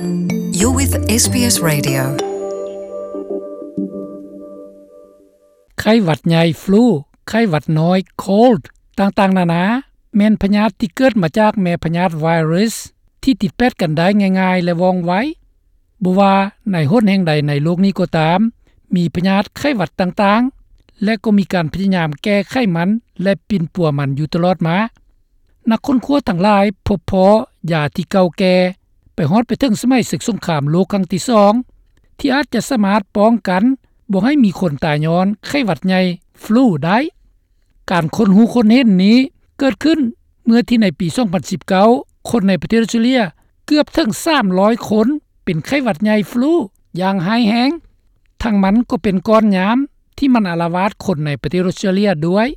You're with ເອສບີເອສ Radio. ໄຂ້ຫວັດໃຫຍ່, ຟລູ, ໄຂ້ຫວັດນ້ອຍ, cold ຕ່າງໆນານາ ແມ່ນພະຍາດທີ່ເກີດມາຈາກແມ່ພະຍາດໄວຣັສ ທີ່ຕິດແປດກັນໄດ້ງ່າຍໆ ແລະ ວ່ອງໄວ. ບໍ່ວ່າໃນຫົນແຫ່ງໃດໃນໂລກນີ້ກໍຕາມ, ມີພະຍາດໄຂ້ຫວັດຕ່າງໆ ແລະ ກໍມີການພະຍາຍາມແກ້ໄຂມັນ ແລະ ປິ່ນປົວມັນຢູ່ຕະຫຼອດມາ. ນັກຄົ້ນຄວ້າທັງຫຼາຍພົບພໍ້ຢາທີ່ເກົ່າແກ່ ໄປຮອດໄປເຖິງສະໄໝເສິກສົງຄາມໂລກຄັ້ງທີສອງ ທີ່ອາດຈະສາມາດປ້ອງກັນບໍ່ໃຫ້ມີຄົນຕາຍຍ້ອນໄຂ້ຫວັດໃຫຍ່, ຟລູ ໄດ້. ການຄົ້ນຮູ້ຄົ້ນເຫັນນີ້ເກີດຂຶ້ນເມື່ອທີ່ໃນປີສອງພັນສິບເກົ້າ ຄົນໃນປະເທດອອສເຕຣເລຍເກືອບເຖິງສາມຮ້ອຍຄົນເປັນໄຂ້ຫວັດໃຫຍ່, ຟລູ ຢ່າງຮ້າຍແຮງ. ທັງມັນກໍເປັນກ້ອນຍາມທີ່ມັນອາລະວາດຄົນໃນປະເທດອອສເຕຣເລຍດ້ວຍ.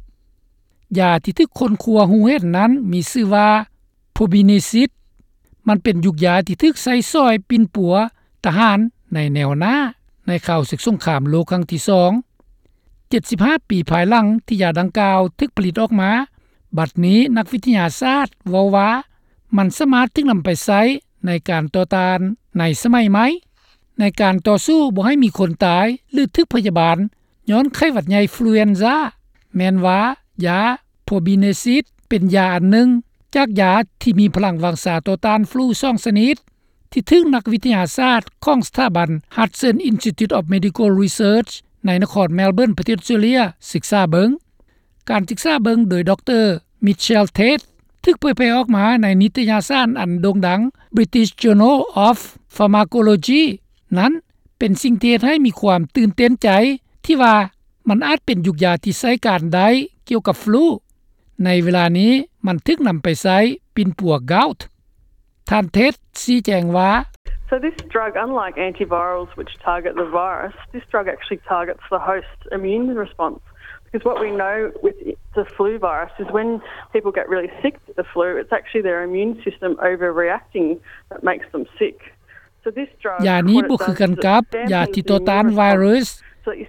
ຢາທີ່ຖືກຄົ້ນຄວ້າຮູ້ເຫັນນັ້ນມີຊື່ວ່າ ໂພບີເນຊິດ. ມັນເປັນຢູກຢາທີ່ຖືກໃຊ້ຊ່ອຍປິ່ນປົວທະຫານໃນແນວໜ້າ ໃນຄາວເສິກສົງຄາມໂລກຄັ້ງທີສອງ. ເຈັດສິບຫ້າປີພາຍຫຼັງທີ່ຢາດັ່ງກ່າວຖືກຜະລິດອອກມາ, ບັດນີ້ນັກວິທະຍາສາດເວົ້າວ່າ ມັນສາມາດຖືກນຳໄປໃຊ້ໃນການຕໍ່ຕ້ານໃນສະໄໝໃໝ່ ໃນການຕໍ່ສູ້ບໍ່ໃຫ້ມີຄົນຕາຍ ຫຼື ຖືກພະຍາບານຍ້ອນໄຂ້ຫວັດໃຫຍ່ ຟລູເອນຊາ ແມ່ນວ່າຢາ ໂພບີເນຊິດ ເປັນຢາອັນໜຶ່ງຈາກຢາທີ່ມີພະລັງວັງຊາຕໍ່ຕ້ານຟລູສອງຊະນິດ ທີ່ຖືກນັກວິທະຍາສາດຂອງສະຖາບັນ Hudson Institute of Medical Research ໃນນະຄອນແມລເບີນ ປະເທດອອສເຕຣເລຍ ສຶກສາເບິ່ງ. ການສຶກສາເບິ່ງໂດຍ ດຣ. Mitchell Tate ຖືກເຜີຍແຜ່ອອກມາໃນນິຕະຍາສານອັນໂດ່ງດັງ British Journal of Pharmacology ນັ້ນ ເປັນສິ່ງທີ່ເຮັດໃຫ້ມີຄວາມຕື່ນເຕັ້ນໃຈ ທີ່ວ່າມັນອາດເປັນຢູກຢາທີ່ໃຊ້ການໄດ້ກ່ຽວກັບຟລູ. ໃນເວລານີ້ມັນຖືກນຳໄປໃຊ້ປິ່ນປົວ gout. ທ່ານ Tate ຊີ້ແຈງວ່າ So this drug, unlike antivirals which target the virus, this drug actually targets the host immune response. Because what we know with the flu virus is when people get really sick with the flu, it's actually their immune system overreacting that makes them sick. ຢານີ້ບໍ່ຄືກັນກັບຢາທີ່ຕໍ່ຕ້ານໄວຣັສ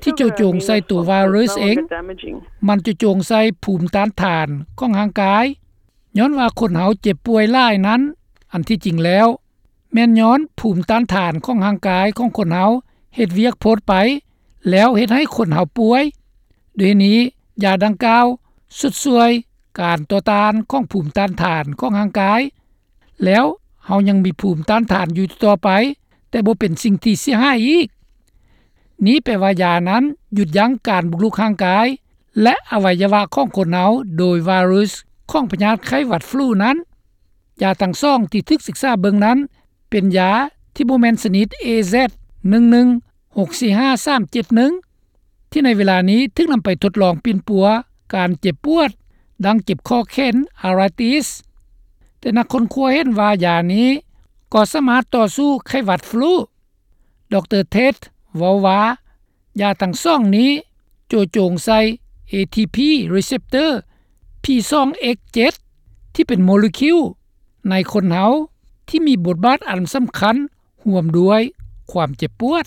ທີ່ຈໍໂຈງໃສ່ໂຕໄວຣັສເອງ. ມັນຈູ່ໂຈງໃສ່ພູມຕ້ານທານຂອງຮ່າງກາຍ. ຍ້ອນວ່າຄົນເຮົາເຈັບປ່ວຍຫຼາຍນັ້ນ, ອັນທີ່ຈິງແລ້ວ ແມ່ນຍ້ອນພູມຕ້ານທານຂອງຮ່າງກາຍຂອງຄົນເຮົາເຮັດວຽກໂພດໄປ, ແລ້ວເຮັດໃຫ້ຄົນເຮົາປ່ວຍ. ດ້ວຍເຫດນີ້, ຢາດັ່ງກ່າວຊຸດຊ່ວຍການຕໍ່ຕ້ານຂອງພູມຕ້ານທານຂອງຮ່າງກາຍ. ແລ້ວເຮົາຍັງມີພູມຕ້ານທານຢູ່ຕໍ່ໄປ, ແຕ່ບໍ່ເປັນສິ່ງທີ່ເສຍຫາຍອີກ. ນີ້ແປວ່າຢານັ້ນຢຸດຢັ້ງການບຸກລຸກຮ່າງກາຍ ແລະ ອະໄວຍະວະຂອງຄົນເຮົາໂດຍໄວຣັສຂອງພະຍາດໄຂ້ຫວັດຟລູນັ້ນ. ຢາທັງສອງທີ່ຖືກສຶກສາເບິ່ງນັ້ນ ເປັນຢາທີ່ບໍ່ແມ່ນຊະນິດ ເອແຊັດ ໜຶ່ງໜຶ່ງຫົກສີ່ຫ້າສາມເຈັດໜຶ່ງ ທີ່ໃນເວລານີ້ຖືກນຳໄປທົດລອງປິ່ນປົວການເຈັບປວດ ດັ່ງເຈັບຂໍ້ແຂນ ອາຣາຕິສ ແຕ່ນັກຄົ້ນຄວ້າເຫັນວ່າຢານີ້ກໍສາມາດຕໍ່ສູ້ໄຂ້ຫວັດຟລູ. ດຣ. Tate ເວົ້າວ່າ ຢາທັງສອງນີ້ໂຈະໂຈງໃສ່ ເອທີພີ receptor ພີສອງເອັກເຈັດ ທີ່ເປັນໂມເລກຸວໃນຄົນເຮົາທີ່ມີບົດບາດອັນສຳຄັນ ຮ່ວມດ້ວຍຄວາມເຈັບປວດ.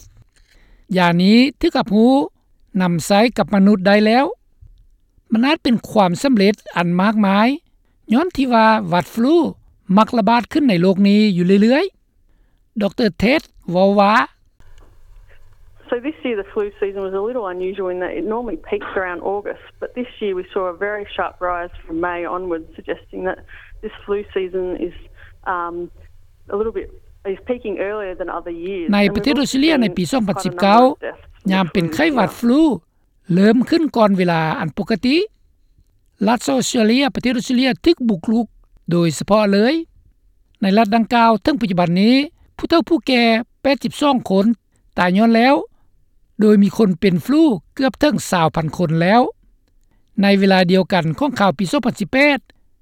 ຢານີ້ຖືກຮັບຮູ້ນຳໃຊ້ກັບມະນຸດໄດ້ແລ້ວ. ມັນອາດເປັນຄວາມສຳເລັດອັນມາກມາຍ ຍ້ອນທີ່ວ່າຫວັດຟລູມັກລະບາດຂຶ້ນໃນໂລກນີ້ຢູ່ເລື້ອຍໆ. ດຣ. Tate ເວົ້າວ່າ So this year the flu season was a little unusual in that it normally peaks around August, but this year we saw a very sharp rise from May onwards, suggesting that this flu season is, um, a little bit, is peaking earlier than other years. ໃນປະເທດອອສເຕຣເລຍໃນປີສອງພັນສິບເກົ້າ ຍາມເປັນໄຂ້ຫວັດຟລູເລີ່ມຂຶ້ນກ່ອນເວລາອັນປົກກະຕິ. ລັດອອສເຕຣເລຍ, ປະເທດອອສເຕຣເລຍຖືກບຸກລຸກໂດຍສະເພາະເລີຍ. ໃນລັດດັ່ງກ່າວເຖິງປັດຈຸບັນນີ້ ຜູ້ເຖົ້າຜູ້ແກ່ແປດສິບສອງຄົນຕາຍຍ້ອນແລ້ວ, ໂດຍມີຄົນເປັນຟລູເກືອບເຖິງຊາວພັນຄົນແລ້ວ. ໃນເວລາດຽວກັນຂອງຄາວປີສອງພັນສິບແປດ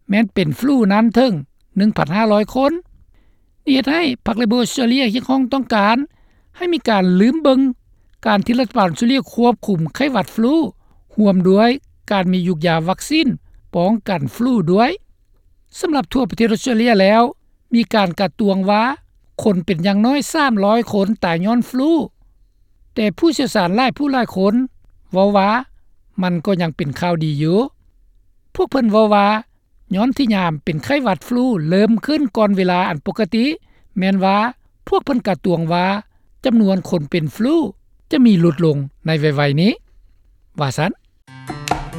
ແມ່ນເປັນຟລູນັ້ນເຖິງໜຶ່ງພັນຫ້າຮ້ອຍຄົນ. ນີ້ເຮັດໃຫ້ພັກເລເບີອອສເຕຣເລຍຮຽກຮ້ອງຕ້ອງການໃຫ້ມີການລືມເບິ່ງການທີ່ລັດຖະບານອອສເຕຣເລຍຄວບຄຸມໄຂ້ຫວັດຟລູ ຮ່ວມດ້ວຍການມີຢູກຢາວັກຊີນປ້ອງກັນຟລູດ້ວຍ. ສຳລັບທົ່ວປະເທດອອສເຕຣເລຍແລ້ວ ມີການກະຕວງວ່າຄົນເປັນຢ່າງໜ້ອຍສາມຮ້ອຍຄົນຕາຍຍ້ອນຟລູ, ແຕ່ຜູ້ຊ່ຽວຊານຫຼາຍຜູ້ຫຼາຍຄົນເວົ້າວ່າມັນກໍຍັງເປັນຂ່າວດີຢູ່. ພວກເພິ່ນເວົ້າວ່າ ຍ້ອນທີ່ຍາມເປັນໄຂ້ຫວັດຟລູເລີ່ມຂຶ້ນກ່ອນເວລາອັນປົກກະຕິ ແມ່ນວ່າ ພວກເພິ່ນກະຕວງວ່າຈຳນວນຄົນເປັນຟລູຈະມີຫຼຸດລົງໃນໄວໆນີ້ ວ່າຊັ້ນ.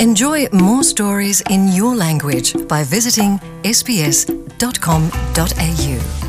Enjoy more stories in your language by visiting S B S dot com dot A U.